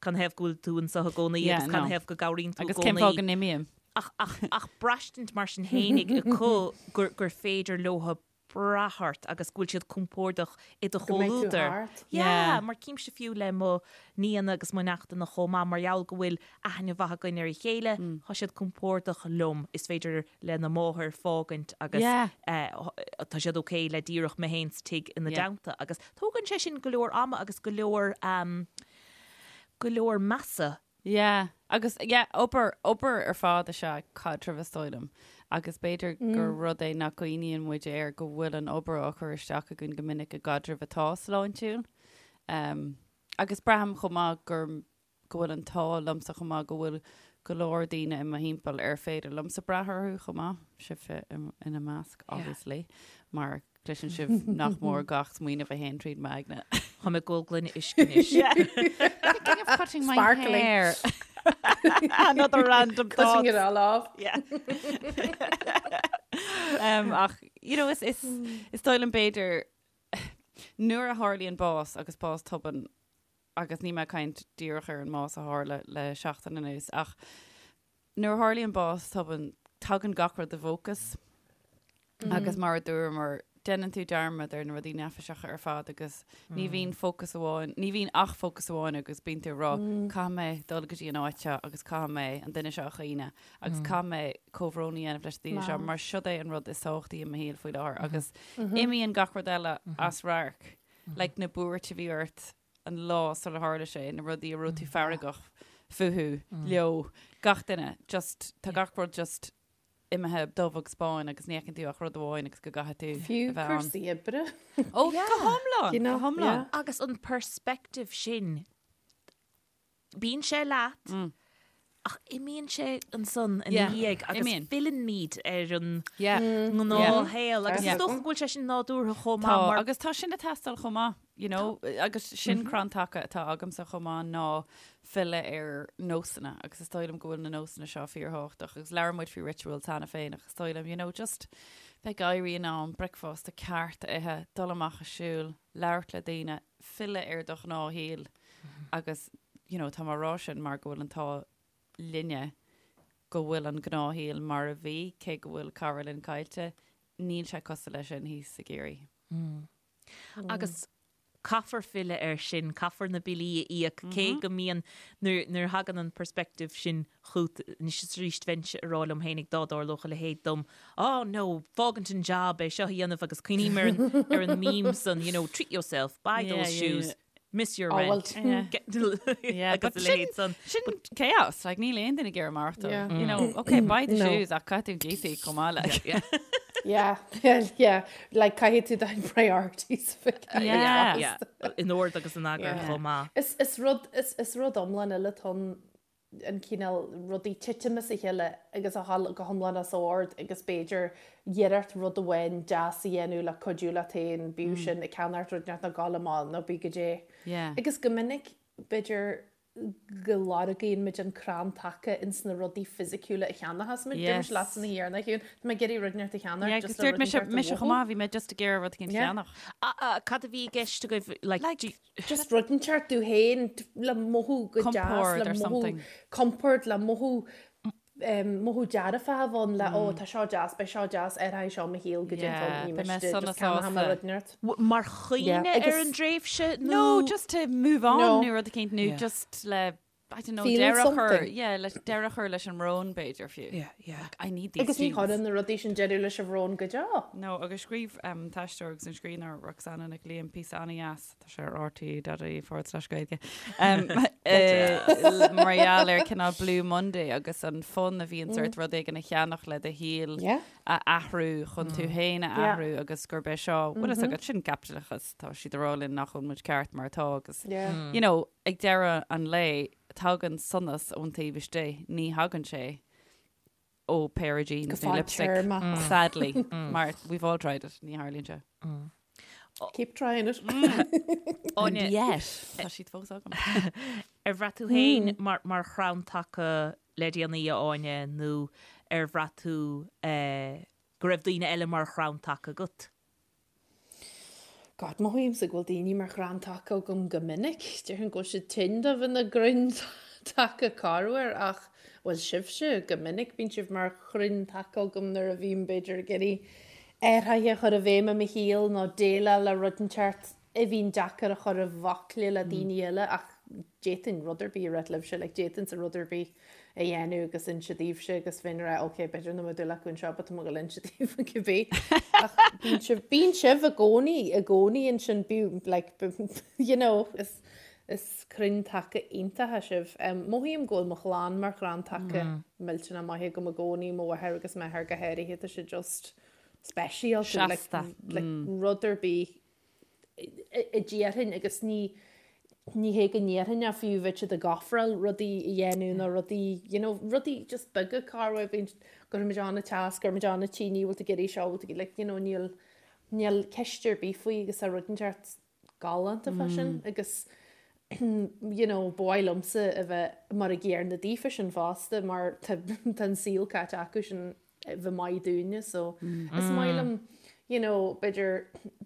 canathaobh go bhfuil tú anseo i gcónaí agus canathaobh go gcabhraíonn tú i gcónaí. Agus cén fáth go n-imím. Ach, ach, ach braistint mar sin fhéinig acu gur, gur féidir leo brath ort agus go bhfuil siad compordach i do Go mbeidh tú chomhluadar. thart. Yeah, mar címse fiú le mo nianna agus mo neachtanna chomh maith, mar gheall go bhfuil aithne mhaith againn ar a chéile, tá siad compordach liom, is féidir lena máthair fágaint agus tá siad ok le díreach mé féin sa tigh ina dteannta agus tógann sé sin go leor ama agus go leor, go leor measa. Yeah, agus yeah, obair, obair ar fad is ea caidreamh is dóigh liom. Agus b'fhéidir gur rud é nach gcuimhníonn muid air go bhfuil an obair á chur isteach againn go minic i gcaidreamh atá sláintiúil. Um, agus braithim chomh maith gur, go bhfuil an t-ádh liomsa chomh maith go bhfuil go leor daoine i mo thimpeall ar féidir liomsa brath orthu chomh maith, sibhse ina measc, obviously, mar Cloiseann sibh nach mór gach smaoineamh a théann tríd m'aigne. Tá mé ag ól gloine uisce anois. Thinking of cutting my Sparkling. hair. Another random Cutting thought. it all off. Yeah. um, ach, you know, is, is, is dóigh liom b'fhéidir nuair a tharlaíonn bás agus bás tobann agus níl mé ag caint díreach ar an mbás a tharla le seachtain anuas ach Nuair a tharlaíonn bás tobann, tagann gach rud i bhfócas agus mar a dúramar, déanann tú dearmad ar na rudaí neafaiseacha ar fad agus ní bhíonn fócas amháin, ní bhíonn ach fócas amháin agus bíonn tú ag rá, caithfidh mé dul go dtí an áit seo agus caithfidh mé an duine seo a chaoineadh agus caithfidh mé comhbhrón a dhéanamh leis na daoine seo mar siod é an rud is tábhachtaí i mo shaol faoi láthair agus imíonn gach rud eile as radharc, like na buairt a bhí ort an lá sular tharla sé, na rudaí a raibh tú feargach fúthu, leo, gach duine, just, tá gach rud just imithe dubh agus bán agus ní fheiceann tú ach rud amháin agus go gcaithfidh tú Fiú a bheith ann. cúrsaí oibre. Ó, go hiomlán, You know, go hiomlán. yeah. Agus an perspective sin, bíonn sé leat ach imíonn sé ansan ina dhiaidh agus filleann muid ar an ngnáthshaol agus is dócha go bhfuil sé sin nádúrtha chomh maith mar. Agus tá sin ag teastáil chomh maith, you know, agus sin crann taca atá agamsa chomh maith ná filleadh ar nósanna agus is dóigh liom go bhfuil na nósanna seo fíorthábhachtach agus labhair muid faoi rituals cheana féin ach is dóigh liom, you know, just bheith ag éirí in am, bricfeasta ceart a ithe, dul amach ag siúl, labhairt le daoine, filleadh ar do ghnáthshaol agus you know tá mé á rá sin mar go bhfuil an t-ádh linne go bhfuil an gnáthshaol mar a bhí, cé go bhfuil cara linn caillte, níl sé cosúil leis sin thíos i gCiarraí. Agus caithfear filleadh air sin, caithfear na billí a íoc, cé go mbíonn, nuair nuair a thagann an perspective sin chugat, anois is arís bheinnse ag rá liom fhéinig dá dtarlódh a leithéid dom, oh no, fágaint an job, é seo a dhéanamh agus cuimhním ar an ar an meme san, you know, treat yourself, buy those shoes, miss your Oh, well, rent, get Yeah, agus but a sin, leithéid san. sin chaos, like níl aon duine ag iarraidh maireachtáil. Yeah. You know, okay, buy the No. shoes ach caithfidh tú an cíos a íoc chomh maith, like. Yeah. Yeah, yeah, like caithfidh tú do priorities a bheith Yeah. Yeah, in ord agus in eagar Yeah. chomh maith. Is, is rud, is, is rud iomlán eile atá ann an cineál rudaí titim as a chéile agus a dhul go hiomlán as ord agus b'fhéidir iarracht rud amháin deas a dhéanamh le cuidiú leat féin, bíodh sin ag ceannacht rud inteacht nó gabháil amach nó bí goidé. Yeah. Agus go minic b'fhéidir go lorgaíonn muid an crann taca ins na rudaí fisiciúla a cheannachas muid. Dúirt mise leatsa na thiarna, a Shiún, tá mé ag iarraidh rud inteacht a cheannacht Yeah, just agus le dúirt rud mise, inteacht a mise mhothú. chomh maith, bhí mé just ag iarraidh rud éicint a Yeah. cheannach. Cad a bhí i gceist agaibh, like, Like, do you- Just rud inteacht tú féin le mothú go deas, Compord le or mothú something. compord, le mothú. mothú dearfach a bheith ann le ó tá seo deas, beidh seo deas, athróidh seo mo shaol go dtí an t-am, ní miste, just ceannóidh mé rud inteacht. Mar chuimhne ar an dtréimhse nó? No, just to move on nó rud eicínt nó just le I don't know, deireadh a chur, yeah, le deireadh a chur leis an mbrón b'fhéidir fiú. Yeah, yeah. Like, I need these Agus ní chuireann na rudaí sin deireadh leis an bhrón go deo. No, agus scríobh an t-aisteoir agus an scríbhneoir Roxanna Nic Liam píosa an-dheas, tá sé ar rte.ie forward slash Gaeilge, mar gheall ar cineál Blue Monday agus an fonn a bhíonns ort rud éigin a cheannach le do shaol a athrú chun tú féin a athrú agus gurb é seo, bhfuil fhios agat, sin caipitleachas, tá siad ag rá linn nach bhfuil muid ceart mar atá agus, you know, Ag deireadh an lae, tagann sonas ón taobh istigh, ní thagann sé ó pair of jeans nó lipstick, sadly, mar we've all tried it, ní tharlaíonn sé. Keep trying it. And yet, tá siad fós agam. Ar bhraith tú féin mar chrann taca le déanaí, a Áine, nó ar bhraith tú go raibh daoine eile mar chrann taca agat? God, mothaímse go bhfuil daoine mar chrann taca agam go minic. Déarfainn go bhfuil siad tinn do bheith ina gcrainn taca corruair ach, bhuel, sibhse, go minic bíonn sibh mar chrainn taca agam nuair a bhím, b'fhéidir, ag iarraidh athruithe a chur i bhfeidhm i mo shaol nó déileáil le rud inteacht a bhíonn deacair a chur i bhfocla le daoine eile ach d'fhéadfainn rud ar bith a ráit libhse, like d'fhéadfainnse rud ar bith a dhéanamh agus inse daoibhse agus bheinn ag rá ok b'fhéidir nach mbeidh dúil acu anseo but tá mé ag dul inse daoibh cibé. Ach bíonn sibh, bíonn sibh i gcónaí, i gcónaí ansin, bíonn like you know is, is crainn taca iontacha sibh. Um, mothaím go bhfuil mo chlann mar chrann taca millteanach maith agam i gcónaí, mo mháthair agus m'athair go háirithe, tá siad just speisialta, like, Seasta. like rud ar bith a déarfainn agus ní ní hé go ndéarfainn ach fiú bheadh siad ag ofráil rudaí a dhéanamh nó rudaí you know rudaí just beaga corruair bíonn gcuirfimid an-teas gcuirfimid an-tine bhfuil tú ag iarraidh seo bhfuil tú like you know níl níl ceist ar bith faoi agus tá rud inteacht galánta fá sin agus you know ba mhaith liomsa a bheith mar a gcéanna daofa sin fosta mar tá tá an saol caite acu sin bheith maith dúinne so is maith liom you know b'fhéidir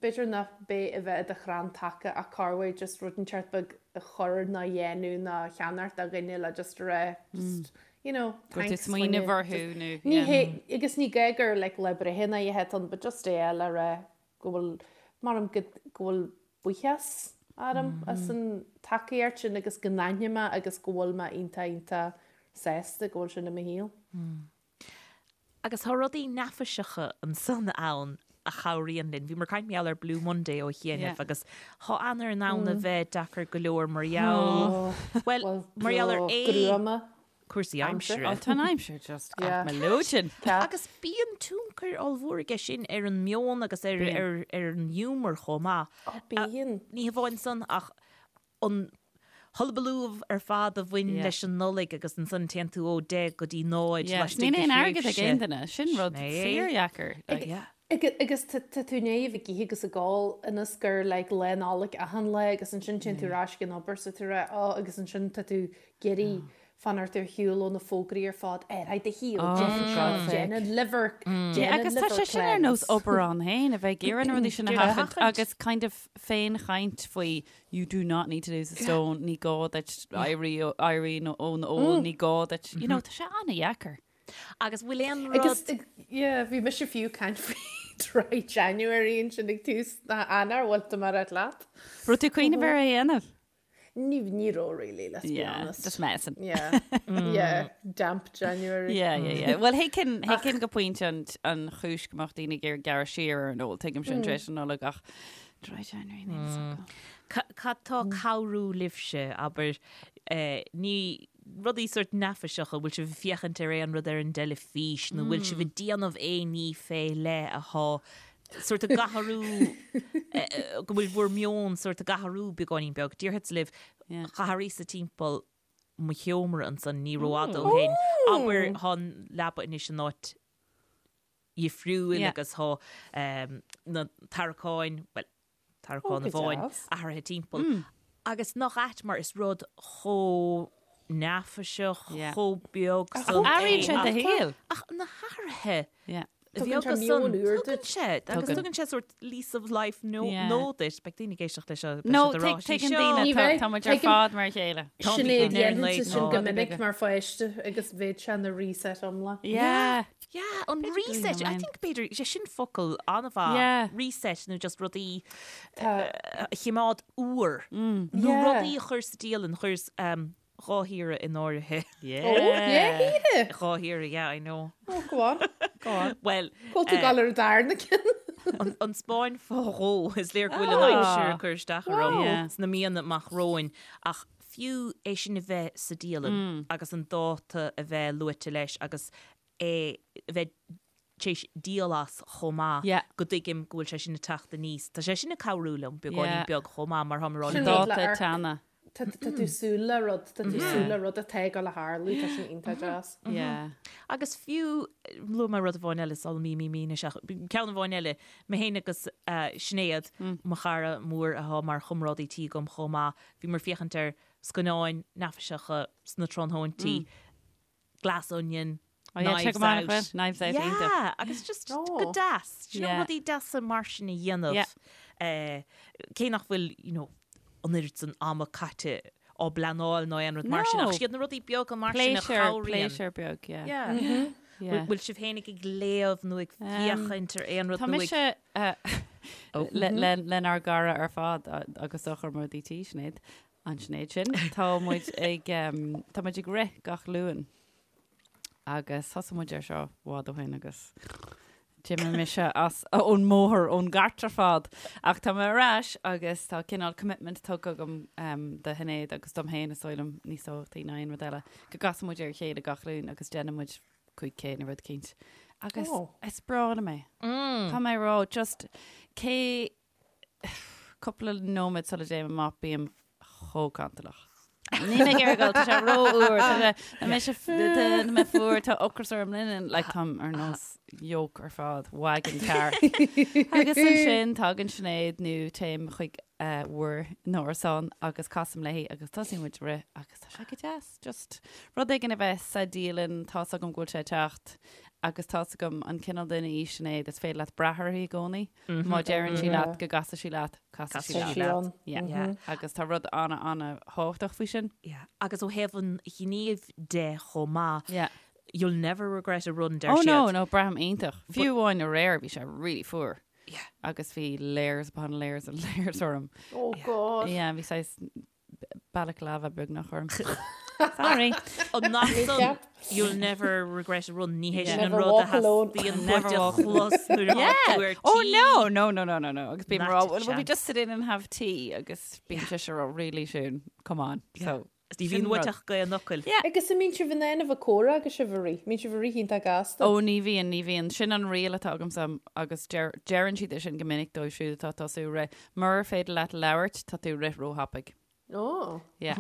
b'fhéidir nach b'é a bheith i do chrann taca ach corruair just rud inteacht beag a chur ná a dhéanamh ná a cheannacht do dhuine le just a rá just you know Go bhfuil tú thanks smaoineamh choinne orthu nó ní yeah. hé agus ní gá gur like lá breithe ná a dhéanamh but just é le rá go bhfuil mar go go bhfuil buíochas orm as an tacaíocht sin agus go n-aithním é agus go bhfuil mé iontach iontach sásta go bhfuil sin i mo shaol. Agus tá rudaí neafaiseacha ansan ann a chabhraíonn linn. Bhíomar ag caint mar gheall ar Blue Monday ó chianaibh agus tá Eanáir in ann a bheith deacair go leor mar gheall, bhuel, mar gheall ar é gruama cúrsaí aimsire. Tá an aimsir just at mo leoithne. Agus bíonn tionchar ollmhór aige sin ar an meon agus ar ar an ghiúmar chomh maith. Bíonn. Ní hamháin san ach an hullabaloo ar fad a bhain leis an Nollaig agus ansan téann tú ó 10 go dtí 0 laistigh de thréimhse. Níl aon airgead ag aon duine, sin rud fíordheacair. Agus tá tú i ndiaidh a bheith ag ithe agus ag ól ionas gur like Lá Nollag achan lá agus ansin téann tú ar ais ag an obair so tú rá oh agus ansin tá tú ag iarraidh fanacht ar shiúl ó na fógraí ar fad ar aghaidh do shaol, déan seo, déan an liver, déan an Agus tá liver sé sin ar nós cleanse. obair ann féin, a bheith ag iarraidh na rudaí sin a sheachaint agus kind of féinchaint faoi you do not need to lose a stone, ní gá duit éirí éirí ón ól, ní gá duit, you know, tá sé an-dheacair. Agus bhfuil aon rud. Agus, yeah, bhí mise fiú ag caint faoi dry January ansin ag tús na Eanáir, bhfuil tú mar leat? Raibh tú ag cuimhneamh ar é a dhéanamh? Ní, ní raibh really, let's be Yeah, honest. just messing. Yeah, yeah, damp January. Yeah, yeah, yeah. Well, thuigfinn, thuigfinn go pointe an, an chúis go mbeadh daoine ag iarraidh gearradh siar ar an ól, tuigim sin tar éis an Nollag ach dry January, níl fhios agam. Cad tá ag cabhrú libhse, abair, ní rudaí sórt neafaiseacha, bhfuil sibh ag féachaint ar aon rud ar an dteilifís nó bhfuil sibh ag déanamh aon ní fé leith athá sórt ag athrú, go bhfuil bhur meon sórt ag athrú beagáinín beag. Déarfadsa libh, d'athraíos-sa timpeall mo sheomra ansan ní rófhada ó shin. Abair, thá an leaba anois in áit dhifriúil agus thá na tarraiceáin, bhuel, tarraiceán amháin athraithe timpeall. Agus nach ait mar is rud chomh neafaiseach, chomh beag san é. Athraíonn sé do shaol. Ach na hathruithe. Tugann sé meon úr duit. Tugann sé, agus tugann sé sort lease of life nó duit. Beidh daoine ag éisteacht leis seo. No, tuigeann daoine, tá muid ar fad mar a chéile. Sinéad, dhéanfainnse sin go minic mar pháiste agus bheadh sé ina reset iomlán. Yeah. Yeah, an reset, I think b'fhéidir, sé sin focal an-mhaith, reset nó just rudaí a chimeád úr. Nó rudaí a chur sa dialann, chuir Dá shaoire in áirithe. Yeah. Oh, yeah, shaoire. Dhá shaoire, yeah, I know. Oh, go on. Go on. Well, Go tú gal ar an darna ceann. An Spáinn fá dhó, is léir go bhfuil an aimsir ag cur isteach orm sna míonna amach romhainn, ach fiú é sin a bheith sa dialann agus an dáta a bheith luaite leis agus é a bheith tar éis díol as chomh maith, go dtuigim go bhfuil sé sin ag teacht aníos. Tá sé sin ag cabhrú liom beagáinín beag chomh maith mar táim ag rá Sin liom. rud le Dáta amharc. teanna. Tá tá tú súil le rud, tá tú súil le rud atá ag dul a tharlú, tá sin iontach deas. Yeah. Agus fiú, luaigh mé rud amháin eile sula mí mí mí anois ach ceann amháin eile, mé féin agus Sinéad, mo chara mór atá mar chomrádaí tí agam chomh maith, bhíomar ag féachaint ar scannáin neafaiseacha sna tráthnóintí, Glass Onion, Oh yeah, Knives check 'em out, Out. Bhuel, Knives Out, iontach. Yeah, agus just Oh. go deas. Do you know, Yeah. rudaí deasa mar sin a dhéanamh. Yeah. Eh, cé nach bhfuil, you know, an oiread san ama caite á bpleanáil nó aon rud mar sin, No. ach siad na rudaí beaga mar sin a Pléisiúr, chabhraíonn. pléisiúr beag, yeah. Yeah. Yeah. Bhfuil bhfuil sibh féinig ag léamh nó ag féachaint ar aon rud Tá nó ag... mise eh, le- le- lenár gcara ar fad a- agus do chomrádaí tí, Sinéad, An Sinéad sin. Tá muid ag tá muid ag rith gach Luan agus thosaigh muid ar seo i bhfad ó shin agus d'imigh mise as ón mbóthar ón gcairt ar fad ach tá mé ar ais agus tá cineál commitment tugtha agam um, do Shinéad agus dom féin is dóigh liom níos tábhachtaí ná aon rud eile go gcasann muid ar a chéile gach Luan agus déanann muid 5K nó rud eicínt. Agus Oh. is breá liom é. Tá mé ag rá just cé Cúpla nóiméad sula dtéim amach bím chomh cantalach. Níl mé ag iarraidh dul, tá sé rófhuar, tá sé, tá mise, tá mé fuar, tá ocras orm, like táim ar nós yoke ar fad, wagon car. Agus ansin tagann Sinéad nó téim chuig bhur n-árasán agus casaim léi agus tosaíonn muid ag rith agus tá sé go deas, just rud éigin a bheith sa dialann, tá's agam go bhfuil sé ag teacht agus tá's agam an cineál duine í Sinéad, is féidir leat brath uirthi i gcónaí. Má deireann sí leat go gcasfaidh sí leat, casfaidh sí Casfaidh sí leat. ann. Yeah. Yeah. Agus tá rud ana, ana thábhachtach faoi sin. Yeah. Agus ó thaobh an ghnímh de chomh maith, Yeah. you'll never regret a run, deir Oh no, siad. no, braithim iontach. Fiú amháin aréir bhí sé really fuar. Yeah. Agus bhí layers upon layers and layers orm. Oh God. Yeah, bhí saghas balaclava beagnach orm. Sorry. An nach san, you'll never regret a run, ní hé sin an Never rud a walk alone. theastaíonn Never uait a walk chlos nuair atá Yeah. tú ar Oh tí. no, no, no, no, no, no. Agus bím Not ag rá, a well, will we chance. just sit in and have tea? Agus bíonn sise ag rá, really Siún, come on. So, Ní bhíonn sin uait rud. ach gaoth an fhocail. Yeah. Agus an mbíonn sibh in ann a bheith ag comhrá agus sibh ag rith? Mbíonn sibh ag rith iontach gasta? Ó ní bhíonn, ní bhíonn. Sin an riail atá agamsa agus deir, deireann siad é sin go minic dóibh siúd atá ag tosú ag rith. Murar féidir leat labhairt, tá tú ag rith róthapaidh. Ó. Yeah.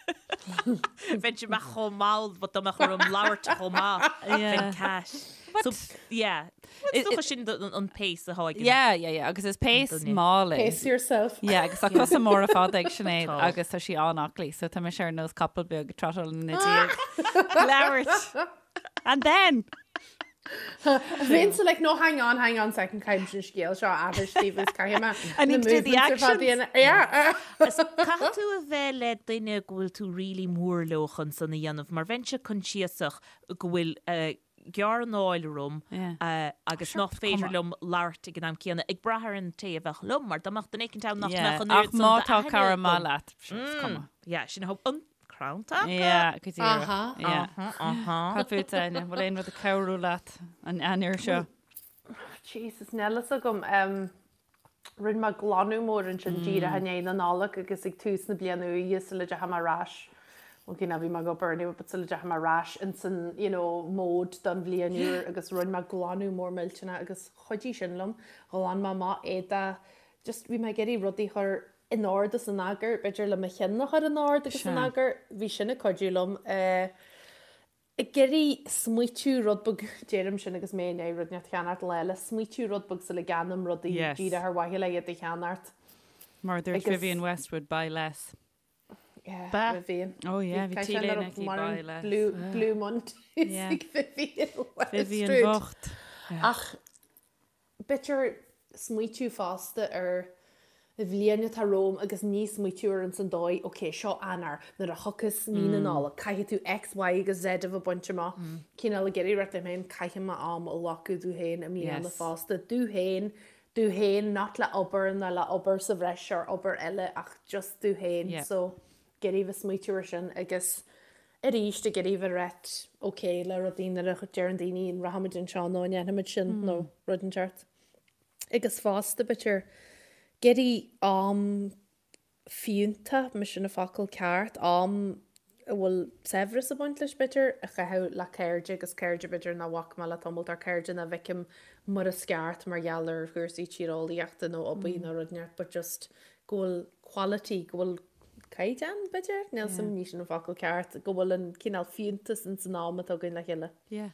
Bheinn amach chomh mall but dá mbeadh orm labhairt chomh maith. Yeah. Bheinn cash. So, yeah. Is dócha sin an pace atá ag an Yeah, yeah, yeah. Agus is pace duine. mall é. Pace yourself. Yeah, agus tá cosa móra fada ag Sinéad Tá. agus tá sí an-aclaí, so tá mise ar nós capall beag ag trotáil ina diaidh. Labhairt. And then! Bheinnse like, no, hang on, hang on second, caithfidh an scéal seo a aithris daoibh is caithfidh mé I need to do the actions. Yeah. Is caithfidh tú a bheith le duine go bhfuil tú really mór leo chun san a dhéanamh, mar bheinnse coinsiasach go bhfuil gearr anáil orm agus nach féidir liom labhairt ag an am céanna, ag brath ar an té a bheadh liom, mar dá mbeadh duine éicint ann nach mbeadh an Ach oiread san má tá d'aithne cara agam. maith leat, sure, is cuma. Yeah, sin a an crann taca. Yeah, go díreach. Aha. Yeah. Aha, aha. Cad fút, Áine? Bhfuil aon rud ag cabhrú leat an Eanáir seo? Jesus, níl fhios agam. Um, rinne mé glanadh mór ansin díreach i ndiaidh na Nollag agus ag tús na bliana úire sula dteachaigh mé ar ais. Ok, ná bhí mé ag obair anyway, but sula dteachaigh mé ar ais ins an, you know, mode don bhliain úr agus rinne mé glanadh mór millteanach agus chuidigh sin liom. Ghlan mé amach éadach, just bhí mé ag iarraidh rudaí a chur in ord is in eagar, b'fhéidir le mo chinn a chur in ord agus in eagar, bhí sin ag cuidiú liom. Ag iarraidh smaoitiú rud beag, deirim sin agus mé i ndiaidh rud inteacht a cheannacht lá eile, smaoitiú rud beag sula gceannaím rudaí díreach ar mhaithe le iad a cheannacht. Mar a dúirt Vivienne Westwood, buy less. Yeah, Vivienne. Oh yeah, bhí t-léine aici, buy less. Blue, Blue Mondays ag Vivienne Westwood. Vivienne bhocht. Ach b'fhéidir smaoitiú fosta ar an bhliain atá romham agus ní smaoitiú air ins an dóigh, ok, seo Eanáir, nuair a thiocfas mí na Nollag, caithfidh tú X, Y agus Z a bheith bainte amach. Cineál ag iarraidh rá liom féin, caithfidh mé am a ghlacadh domh féin i mbliana fosta, domh féin, domh féin, not le obair ná le obair sa bhreis or obair eile ach just domh féin. So, ag iarraidh bheith smaoitiú ar sin agus arís ag iarraidh bheith right ok le rudaí nuair a deireann daoine an rachaimid anseo nó an ndéanfaimid sin nó rud inteacht. Agus fosta, b'fhéidir, ag iarraidh am fiúntach, más sin an focal ceart, am a bhfuil saibhreas ag baint leis, b'fhéidir, a chaitheamh le cairde agus cairde, b'fhéidir, nach bhfaca mé le tamall, or cairde nach bhfeicim mar is ceart mar gheall ar chúrsaí tíreolaíochta nó obair nó rud inteacht, but just go bhfuil quality, go bhfuil caighdeán, b'fhéidir, níl 's a'm, ní sin an focal ceart, go bhfuil an cineál fiúntas ins an am atá againn le chéile. Yeah.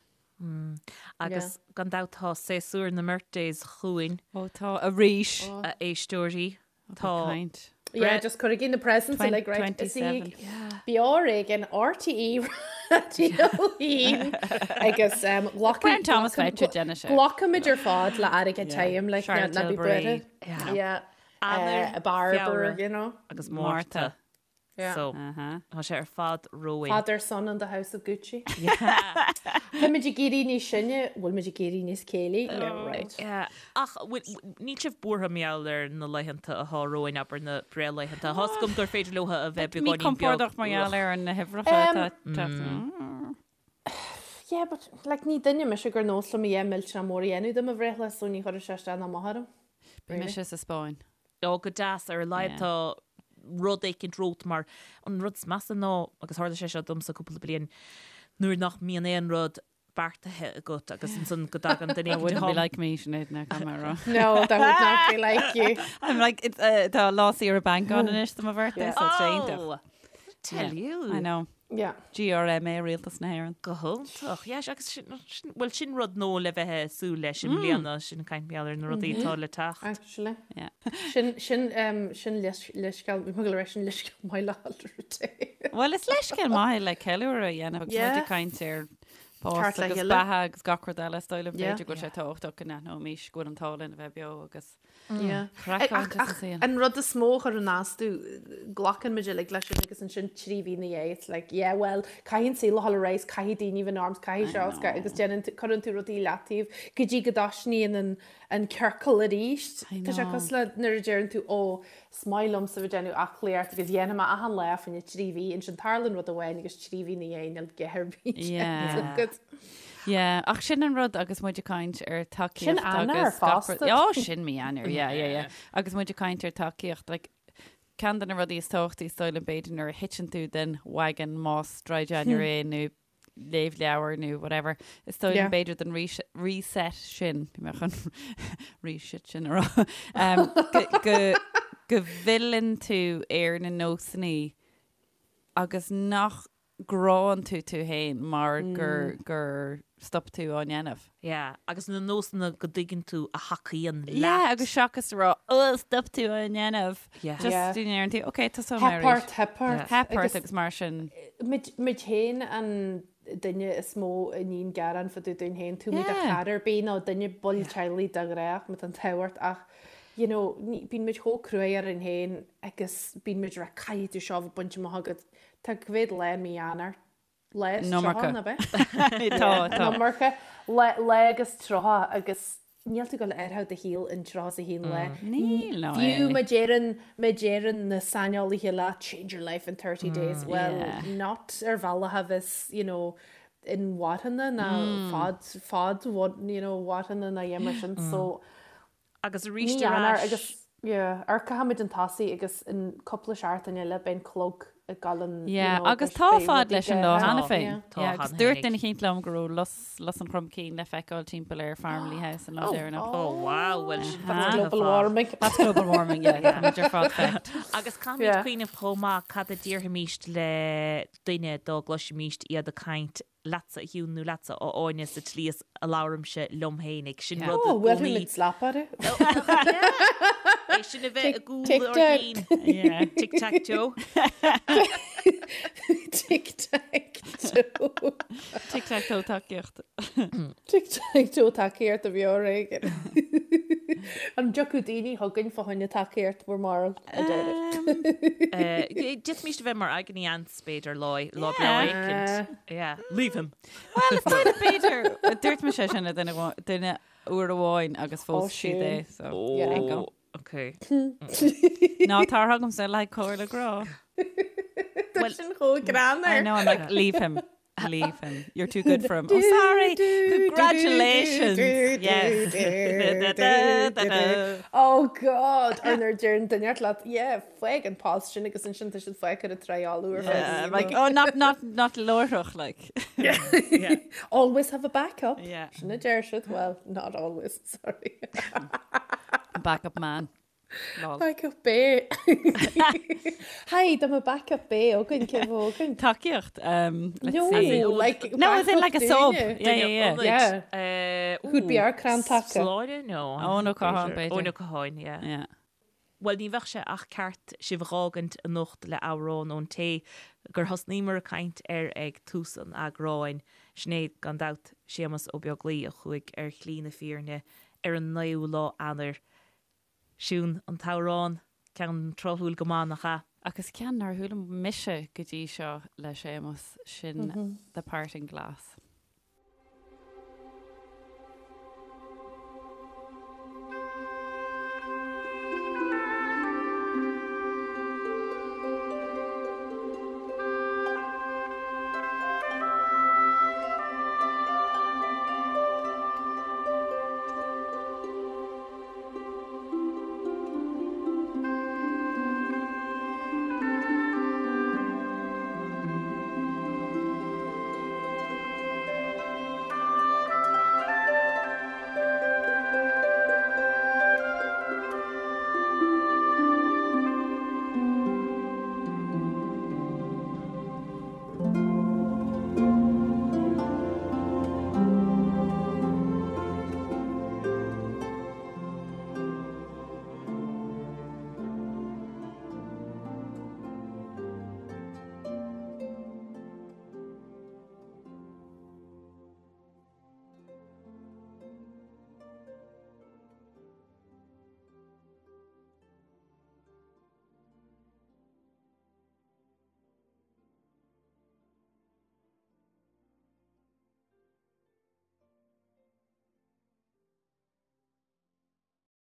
Agus gan dabht tá séasúr na mBirthdays chugainn. Ó tá, arís. A éisteoirí. Tá. Caint. Yeah, just cuirigí na presents uilig, right? Is í Beo Ar Éigean, RTÉ Raidió 1 agus Brown Thomas bheith déanamh sé. Glacaimid ar fad le airgead tirim, like, ná bí buartha. Yeah. Eanáir, Barber, you know. Agus Márta. So, tá sé ar fad romhainn. Father, son and the house of Gucci. Táimid ag éirí níos sine, bhfuil muid ag éirí níos céillí? Yeah, right. Yeah. Ach níl sibh buartha mar gheall ar na laethanta atá romhainn, abair na breithlaethanta. Tá 's agam gur féidir leo a bheith beagáinín beag. Míchompordach mar gheall ar na huimhreacha atá ag teacht. Yeah, but like ní duine mise gur nós liom a dhath millteanach mór a dhéanamh de mo bhreithlá, so ní chuirfeadh sé isteach ná amach orm. Beidh mise sa Spáinn. Ó, go deas, ar a laghad tá rud éicint romhat mar an rud is measa ná, agus tharla sé seo domsa cúpla bliain, nuair nach mbíonn aon rud beartaithe agat agus ansan go dtagann duine That wouldn't be like me, Sinéad, now caithfidh mé a rá. No, that would not be like you. I'm like, it's, uh, tá lá saoire banc ann anois do mo bhirthday, so it's iontach. Oh! Tell you. I know. Yeah. GRMA, Rialtas na hÉireann. Go hiontach. Yeah, agus sin, sin, bhuel sin rud nua le bheith ag súil leis i mbliana, sin caint mar gheall ar na rudaí atá le teacht. Actually. Yeah. Sin, sin, um, sin leithscéal, bhí mé ag dul a rá sin leithscéal maith le rté. Bhuel, is leithscéal maith é le ceiliúradh a dhéanamh agus Yeah. muid ag caint ar bás Ceart le agus chéile. beatha agus gach rud eile, is dóigh liom Yeah. b'fhéidir go bhfuil sé tábhachtach go n-aithneoimis go bhfuil an t-ádh linn a bheith beo agus Yeah. Craiceáilte Ach sa saol. an rud is mó a chuireann as domh, glacann muid uilig leis sin agus ansin 3 mhí ina dhiaidh it's like yeah well caithfidh an saol a dhul ar aghaidh, caithfidh daoine bheith in arms, caithfidh seo, I agus déanann tú, cuireann tú rudaí i leataobh go dtí go dtosnaíonn an, an ciorcal arís. I Tá sé know. cosúil le nuair a deireann tú ó is maith liomsa bheith ag déanamh aclaíocht agus dhéanfaidh mé achan lá fá choinne 3 mhí, ansin tarlaíonn rud amháin agus 3 mhí ina dhiaidh níl a dhath ar bith Yeah. déanta agat. Yeah, ach sin an rud agus muid ag caint ar tacaíocht Sin Eanáir agus gach rud- fosta. Ó, sin mí Eanáir, yeah, yeah, yeah. Agus muid ag caint ar tacaíocht, like, ceann de na rudaí is tábhachtaí is dóigh liom b'fhéidir nuair a thiteann tú den wagon más dry January é nó léamh leabhar nó whatever, is dóigh liom Yeah. b'fhéidir den reset sin, bhí mé chun reset sin a rá, um, go, go, go bhfilleann tú ar na nósanna agus nach gcránn tú tú féin mar gur gur stop tú á ndéanamh. Yeah, agus na nósanna go dtuigeann tú a thacaíonn leat. Yeah, agus seachas a rá, oh, stop tú á ndéanamh. Yeah. Just Yeah. deireann tú, ok, tosóidh mé Theip arís. ort, theip ort. Theip ort Agus agus mar sin. muid muid féin an duine is mó a níonn gearán fá dtaobh dúinn féin, tú muid a Yeah. chara ar bith nó duine ball teaghlaigh de ghnáth, má tá an t-ádh ort ach you know, ní, bíonn muid chomh cruaidh orainn féin agus bíonn muid ag rá caithfidh tú seo a bheith bainte amach agat. Tá cá mhéad lá i mí Eanáir? Lá is An iomarca. 30, nach ea? Tá, tá. An iomarca. Lá, lá agus 30 agus níl tú ag dul a athrú do shaol in 31 lá. Níl, no Fiú way. má deireann, má deireann na saineolaithe leat change your life in 30 days, well, Yeah. not ar bhealach a bheas, you know, inmharthana ná fad, fad, you know, mharthana ná a dhath mar sin. So, Agus arís Mí ar Eanáir ais. agus yeah, amharcfaimid chun tosaigh agus in cúpla seachtain eile beidh an clog ag dul an you Yeah, know, agus beidh tá beidh fad rudaí leis an lá go- cheana Tá. féin. Yeah. Tá Yeah, agus cheana dúirt féinig. duine eicínt liom go raibh lus, lus an chromchinn le feiceáil timpeall ar Farmleigh House an lá deireanach. Oh wow, well sin That's fada global fad. warming. That's global warming, yeah. Táimid ar fad fucked. Agus caithfimid Yeah. cuimhneamh chomh maith cad a déarfaimíst le duine dá gcloisfimíst iad ag caint. leatsa a Shiún nó leatsa a Áine sa tslí is a labhraimse liom fhéinig. Sin rud i gcónaí. Bhuailfidh muid slap orthu. É sin a bheith i gcúl ár gcinn. Tic tac toe. Tic tac toe. Tic tac toe tacaíocht. Tic tac toe tacaíocht a bhí ar éigean. An dtiocfadh daoine chugainn fá choinne tacaíocht bhur mbarúil? I doubt it. D'fhéadfaimis a bheith mar agony aunts b'fhéidir lá lá breá éicint. Yeah. Leave him. Well, is dóigh b'fhéidir, dúirt mise sin le duine duine uair amháin agus phós siad é, so there you go. Okay. Ná tar chugamsa le comhairle grá. Tá sin chomh greannmhar. I know, I'm like, leave him. Leave him. You're too good for him. Oh, sorry. Congratulations. Yes. Oh God, ar nuair a deireann duine leat, yeah, fág an post sin agus ansin tá siad fágtha ar triáil uair Yeah, like, oh, not, not, not láithreach, like. Yeah. Always have a backup. Yeah. Sin a deir siad, well, not always, sorry. Backup man. Lol. Backup B. Hi, dá mbeadh backup B againn, cé bheadh againn? Tacaíocht, um, let's No, see. like No, as in like a backup sub. dúinne. Yeah, yeah, yeah. Yeah. Uh, Who'd be our crann taca? Sláine? No. Eoin Ó Catháin, b'fhéidir. Eoin Ó Catháin, yeah. Yeah. Bhuel, ní bheadh sé ach ceart sibh a dh'fhágaint anocht le amhrán ón té gur thosnaíomar ag caint air ag tús an eagráin. Sin é, gan dabht, Séamus Ó Beaglaoi a chuaigh ar shlí na fírinne ar an naoú lá Eanáir. Siún, an t-amhrán, ceann tráthúil go maith, nach ea? Agus ceann nár chuala mise go dtí seo le Séamus, sin The Parting Glass.